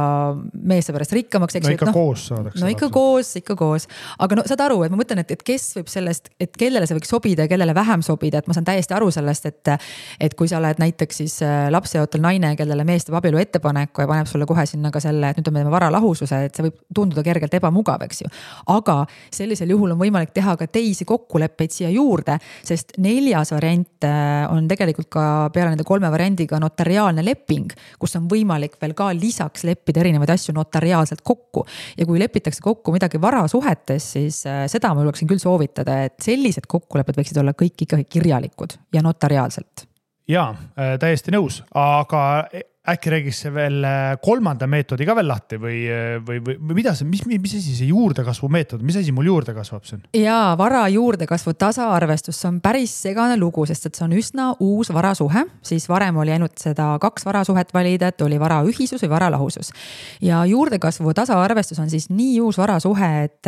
mees saab pärast rikkamaks. Koos saadakse. Ikka koos. Aga saad aru, et ma mõtlen, et kes võib sellest, et kellele see võiks sobida ja kellele vähem sobida, et ma saan täiesti aru sellest, et kui sa oled näiteks siis lapseootel naine, kellele mees teeb abielu ettepaneku ja paneb sulle kohe sinna ka selle, et nüüd me teeme vara lahususe, et see võib tunduda kergelt ebamugav, eks ju. Aga sellisel juhul on võimalik teha ka teisi kokkuleppeid siia juurde, sest 4. variant on tegelikult ka peale nende 3 variandiga notariaalne leping, kus on võimalik veel ka lisaks leppida erinevaid asju notariaalselt kokku. Ja kui lepitakse kokku midagi varasuhetes, siis seda ma julgeksin küll soovitada, et sellised kokkulepped võiksid olla kõik ikkagi kirjalikud ja notariaalselt. Jaa, täiesti nõus, aga äkki räägiks see veel 3. meetodi ka veel lahti või mida see, mis asi see juurdekasvu meetod, mis asi mul juurde kasvab siin? Jaa, vara juurdekasvu tasaarvestus, see on päris segane lugu, sest et see on üsna uus varasuhe, siis varem oli ainult seda 2 varasuhet valida, et oli vara ühisus või vara lahusus. Ja juurdekasvu tasaarvestus on siis nii uus varasuhe, et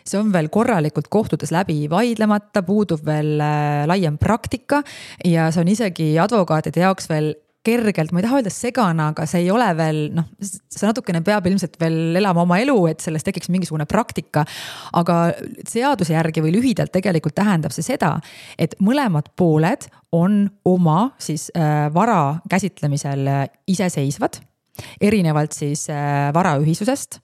see on veel korralikult kohtutes läbi vaidlemata, puudub veel laiem praktika ja see on isegi advokaatide jaoks veel kergelt, ma ei taha öelda segana, aga see ei ole veel, see natukene peab ilmselt veel elama oma elu, et sellest tekiks mingisugune praktika, aga seaduse järgi või lühidalt tegelikult tähendab see seda, et mõlemad pooled on oma siis vara käsitlemisel iseseisvad, erinevalt siis varaühisusest.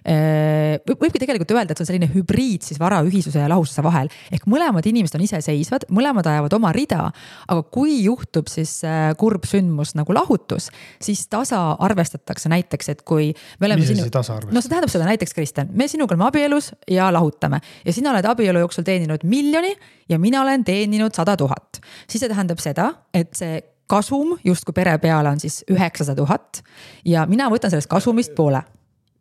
Võibki tegelikult öelda, et see on selline hübriid siis varaühisuse ja lahususe vahel. Ehk mõlemad inimesed on iseseisvad, mõlemad ajavad oma rida, aga kui juhtub siis kurb sündmus nagu lahutus, siis tasa arvestatakse näiteks, et kui me oleme mis tasa arvestatakse? No see tähendab seda näiteks, Kristjan, me sinuga oleme abielus ja lahutame ja sina oled abielu jooksul teeninud 1 000 000 ja mina olen teeninud 100 000. Siis see tähendab seda, et see kasum justkui pere peale on siis 900 000 ja mina võtan sellest kasumist poole.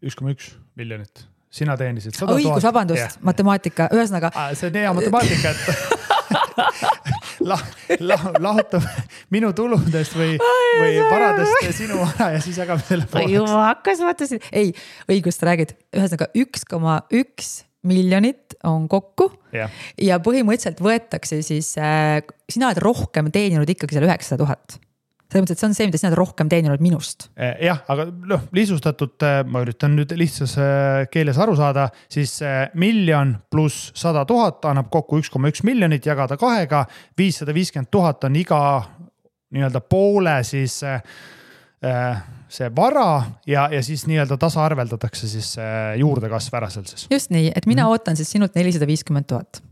1,1 miljonit. Sina teenisid 100 000. Õigus, vabandust, matemaatika. Ühesõnaga. See on hea matemaatika, et lahutab minu tuludest või varadest sinu vara ja siis jagame selle pooleks. Juba hakkas mõtlesin. Ei, õigust räägid. Ühesõnaga 1,1 miljonit on kokku ja põhimõtteliselt võetakse siis, sina oled rohkem teeninud ikkagi selle 900 000. Selles mõttes, et see on see, mida sina oled rohkem teeninud minust. Jah, aga lihtsustatult, ma üritan nüüd lihtsas keeles aru saada, siis 1 miljon pluss 100 000 annab kokku 1,1 miljonit, jagada 2-ga, 550 000 on iga nii-öelda poole siis see vara ja siis nii-öelda tasa arveldatakse siis juurdekasv ära seal siis. Just nii, et mina ootan siis sinult 450 000.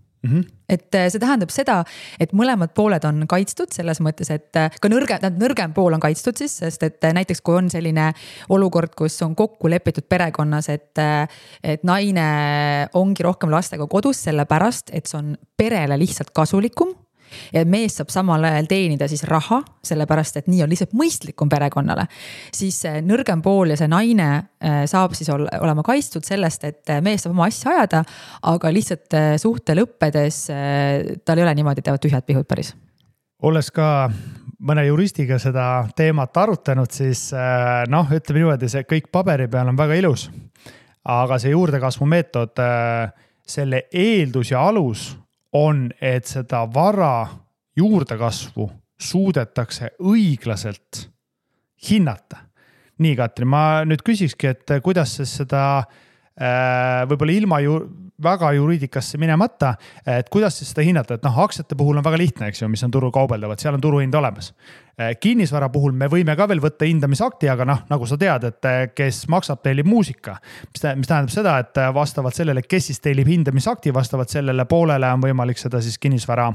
Et see tähendab seda, et mõlemad pooled on kaitstud selles mõttes, et ka nõrgem pool on kaitstud siis, sest et näiteks kui on selline olukord, kus on kokku lepitud perekonnas, et naine ongi rohkem lastega kodus sellepärast, et see on perele lihtsalt kasulikum ja mees saab samal ajal teenida siis raha, sellepärast et nii on lihtsalt mõistlikum perekonnale, siis nõrgem pool ja see naine saab siis olema kaitstud sellest, et mees saab oma asja ajada, aga lihtsalt suhte lõppedes tal ei ole niimoodi teevad tühjad pihud päris. Olles ka mõne juristiga seda teemat arutanud, siis ütleme niimoodi, see kõik paberi peal on väga ilus, aga see juurdekasvu meetod, selle eeldus ja alus on, et seda vara juurdekasvu suudetakse õiglaselt hinnata. Nii, Katri, ma nüüd küsikski, et kuidas seda võib-olla ilma väga juriidikasse minemata, et kuidas seda hinnata, et aktsiate puhul on väga lihtne, eks ju, mis on turul kaubeldavat, seal on turuhind olemas. Kinnisvara puhul me võime ka veel võtta hindamisakti, aga nagu sa tead, et kes maksab, tellib muusika, mis tähendab seda, et vastavalt sellele, kes siis tellib hindamisakti, vastavalt sellele poolele on võimalik seda siis kinnisvara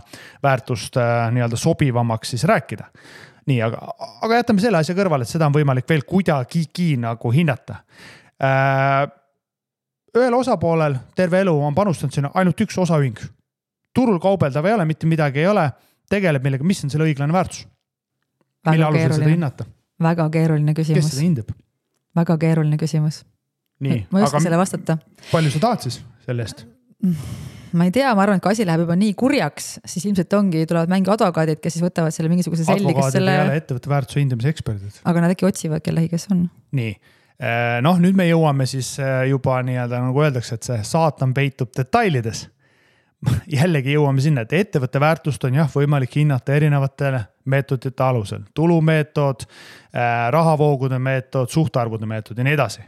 väärtust nii-öelda sobivamaks siis rääkida. Nii, aga jätame selle asja kõrvale, et seda on võimalik veel kuidagigi nagu hinnata. Ühel osapoolel terve elu on panustanud sinna ainult üks osaühing. Turul kaubeldav ei ole, mitte midagi ei ole, tegeleb millega, mis on selle õiglane väärtus? Mille alusel seda hinnata? Väga keeruline küsimus. Kes seda hindab? Väga keeruline küsimus. Nii, ma ei oska selle vastata. Palju sa tahad siis sellest? Ma ei tea, ma arvan, et kui asi läheb juba nii kurjaks, siis ilmselt tulevad mängi advokaadid, kes siis võtavad selle mingisuguse selli. Advokaadid ei ole ettevõtte väärtuse hindamise eksperdid. Aga nad äkki otsivad kellehi, kes on. Nii. Nüüd me jõuame siis juba nii-öelda nagu öeldakse, et see saatan peitub detailides. Jällegi jõuame sinna, et ettevõtte väärtust on võimalik hinnata erinevatele meetodite alusel. Tulumeetod, rahavoogude meetod, suhtarvude meetod ja nii edasi.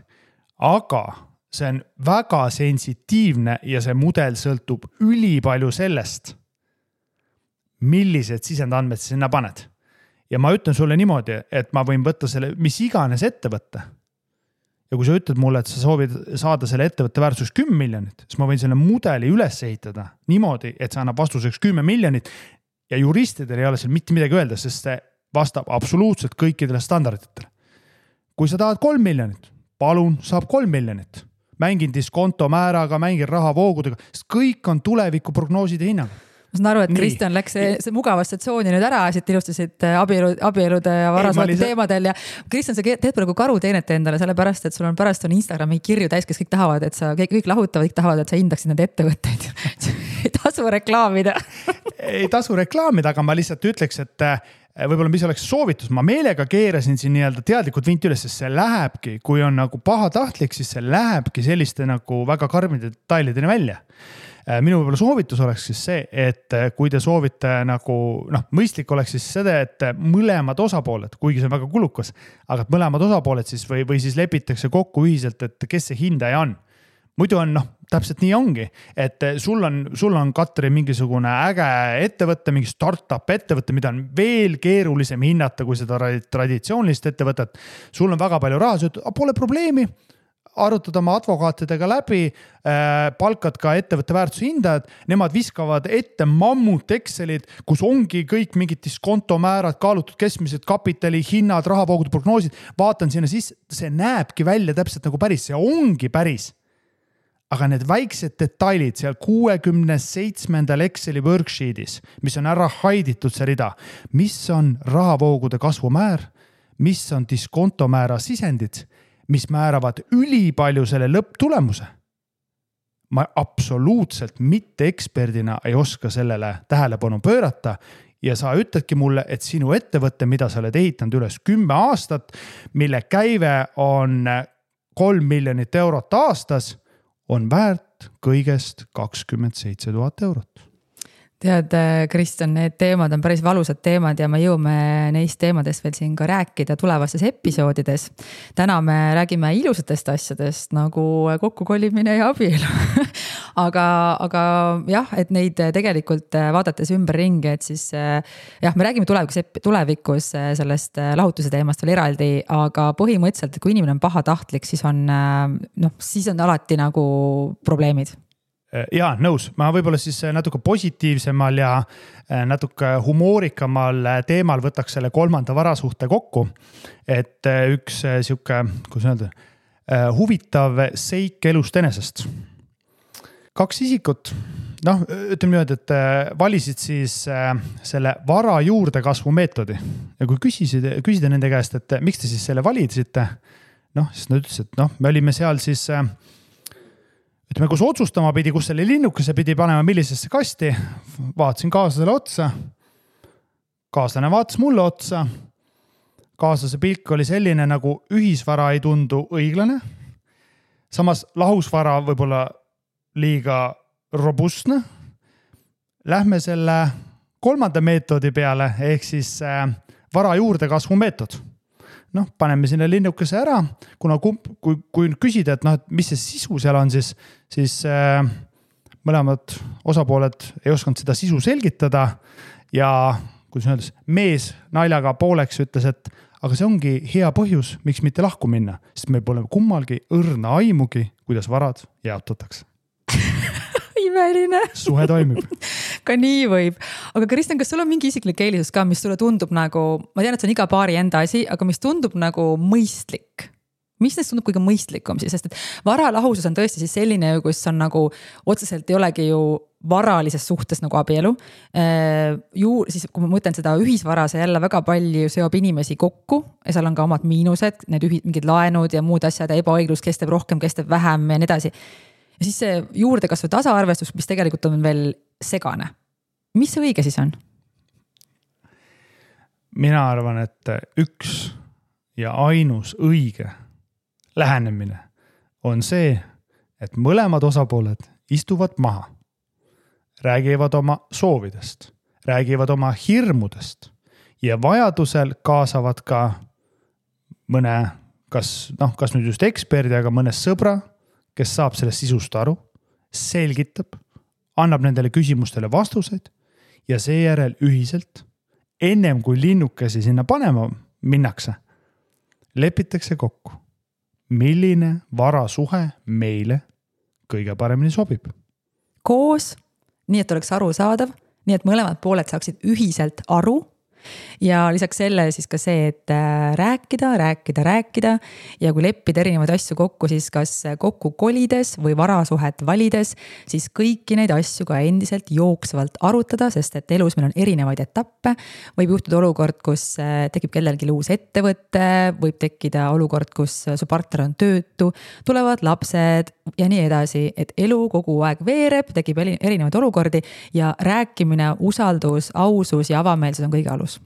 Aga see on väga sensitiivne ja see mudel sõltub ülipalju sellest, millised sisendandmed sinna paned. Ja ma ütlen sulle niimoodi, et ma võin võtta selle, mis iganes ettevõtte. Ja kui sa ütled mulle, et sa soovid saada selle ettevõtte väärtuseks 10 miljonit, siis ma võin selle mudeli üles ehitada niimoodi, et see annab vastuseks 10 miljonit ja juristidel ei ole seal mitte midagi öelda, sest see vastab absoluutselt kõikidele standarditele. Kui sa tahad 3 miljonit, palun, saab 3 miljonit. Mängin diskonto määraga, mängin rahavoogudega, sest kõik on tuleviku prognooside hinnaga. Ma saan aru, et Kristjan läks see mugavasse tsooni nüüd ära, siit ilustasid abielude ja varasvate teemadel ja Kristjan, sa teed praegu karuteenet endale, sellepärast, et sul on pärast Instagrami kirju täis, kes kõik tahavad, et sa kõik lahutavad, kõik tahavad, et sa hindaksid need ettevõtteid. Ei tasu reklaamida. Ei tasu reklaamida, aga ma lihtsalt ütleks, et võib-olla mis oleks soovitus, ma meelega keerasin siin nii-öelda teadlikult vint üles, sest see lähebki, kui on nagu pahatahtlik, siis see lähebki selliste nagu väga karmide detailideni välja. Minu võib-olla soovitus oleks siis see, et kui te soovite nagu, mõistlik oleks siis seda, et mõlemad osapooled, kuigi see on väga kulukas, aga mõlemad osapooled siis või siis lepitakse kokku ühiselt, et kes see hindaja on. Muidu on, täpselt nii ongi, et sul on Katri mingisugune äge ettevõtte, mingi startup ettevõtte, mida on veel keerulisem hinnata kui seda traditsioonilist ettevõtet. Sul on väga palju raha, sa ütled, pole probleemi, arutad oma advokaatidega läbi, palkad ka ettevõtte väärtuse hindajad, nemad viskavad ette mammut Excelid, kus ongi kõik mingid diskontomäärad, kaalutud keskmised kapitali, hinnad, rahavoogude prognoosid, vaatan sinna sisse, see näebki välja täpselt nagu päris, see ongi päris. Aga need väiksed detailid seal 67. Exceli worksheetis, mis on ära haiditud see rida, mis on rahavoogude kasvumäär, mis on diskontomäära sisendid, mis määravad ülipalju selle lõpptulemuse. Ma absoluutselt mitte eksperdina ei oska sellele tähelepanu pöörata ja sa ütledki mulle, et sinu ettevõte, mida sa oled ehitanud üles 10 aastat, mille käive on 3 miljonit eurot aastas, on väärt kõigest 27 000 eurot. Tead, Kristjan, need teemad on päris valusad teemad ja me jõuame neist teemadest veel siin ka rääkida tulevastes episoodides. Täna me räägime ilusatest asjadest nagu kokkukolimine ja abielu. aga jah, et neid tegelikult vaadates ümber ringi, et siis jah, me räägime tulevikus sellest lahutuse teemast veel eraldi, aga põhimõtteliselt, kui inimene on pahatahtlik, siis on alati nagu probleemid. Jaa, nõus. Ma võib-olla siis natuke positiivsemal ja natuke humoorikamal teemal võtaks selle 3. varasuhte kokku. Et üks siuke, kuidas öelda, huvitav seik elust enesest. 2 isikut, ütleme niimoodi, et valisid siis selle vara juurde kasvu meetodi. Ja kui küsida nende käest, et miks te siis selle validisite, siis nad ütlesid, et me olime seal siis ütleme, kus otsustama pidi, kus selle linnukese pidi panema, millisesse kasti, vaatasin kaaslasele otsa, kaaslane vaatas mulle otsa, kaaslase pilk oli selline, nagu ühisvara ei tundu õiglane, samas lahusvara võib-olla liiga robustne. Lähme selle 3. meetodi peale, ehk siis vara juurde kasvu meetod. Paneme sinna linnukese ära, kuna kui küsida, et mis see sisu seal on, siis mõlemad osapooled ei osanud seda sisu selgitada ja kuidas öeldes, mees naljaga pooleks ütles, et aga see ongi hea põhjus, miks mitte lahku minna, sest meil pole kummalgi õrna aimugi, kuidas varad jaotatakse. Imeline. Suhe toimib. Ka nii võib. Aga Kristjan, kas sul on mingi isiklik eelisus ka, mis sulle tundub nagu, ma tean, et see on iga paari enda asi, aga mis tundub nagu mõistlik? Mis neist tundub kõige mõistlikum siis? Sest et varalahusus on tõesti siis selline, kus on nagu otseselt ei olegi ju varalises suhtes nagu abielu. Siis kui ma mõtlen seda ühisvara, see jälle väga palju seob inimesi kokku ja seal on ka omad miinused, need mingid laenud ja muud asjad ja ebaõiglus, kes teeb rohkem, kes teeb vähem ja nii edasi. Ja siis see juurdekasvu tasaarvestus, mis tegelikult on veel segane. Mis see õige siis on? Mina arvan, et üks ja ainus õige lähenemine on see, et mõlemad osapooled istuvad maha, räägivad oma soovidest, räägivad oma hirmudest ja vajadusel kaasavad ka mõne, kas nüüd just eksperdi, aga mõne sõbra, kes saab sellest sisust aru, selgitab, annab nendele küsimustele vastuseid ja seejärel ühiselt, ennem kui linnukesi sinna panema minnakse, lepitakse kokku, milline varasuhe meile kõige paremini sobib. Koos, nii et oleks arusaadav, nii et mõlemad pooled saaksid ühiselt aru. Ja lisaks selle siis ka see, et rääkida ja kui leppida erinevaid asju kokku, siis kas kokku kolides või varasuhet valides, siis kõiki neid asju ka endiselt jooksvalt arutada, sest et elus meil on erinevaid etappe. Võib juhtuda olukord, kus tekib kellelgi uus ettevõte, võib tekkida olukord, kus su partner on töötu, tulevad lapsed ja nii edasi, et elu kogu aeg veereb, tekib erinevaid olukordi ja rääkimine, usaldus, ausus ja avameelsus on kõige alus.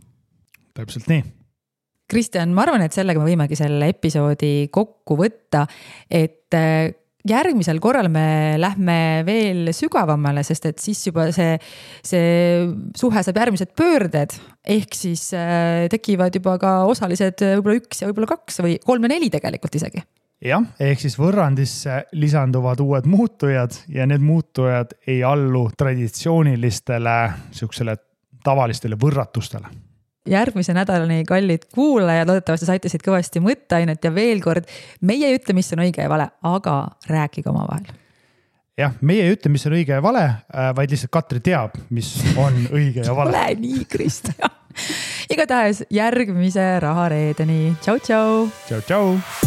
Täpselt nii. Kristjan, ma arvan, et sellega me võimegi selle episoodi kokku võtta, et järgmisel korral me lähme veel sügavamale, sest et siis juba see suhe saab järgmised pöörded, ehk siis tekivad juba ka osalised võib-olla 1 ja võib-olla 2 või 3 ja 4 tegelikult isegi. Jah, ehk siis võrrandisse lisanduvad uued muutujad ja need muutujad ei allu traditsioonilistele siuksele tavalistele võrratustele. Järgmise nädalani kallid kuulajad, loodetavasti saite siit kõvasti mõtteainet ja veel kord, meie ei ütle, mis on õige ja vale, aga rääkige oma vahel. Jah, meie ei ütle, mis on õige ja vale, vaid lihtsalt Katri teab, mis on õige ja vale. Ole nii, Kristjan. Igatahes järgmise rahareedeni. Tšau, tšau. Tšau, tšau.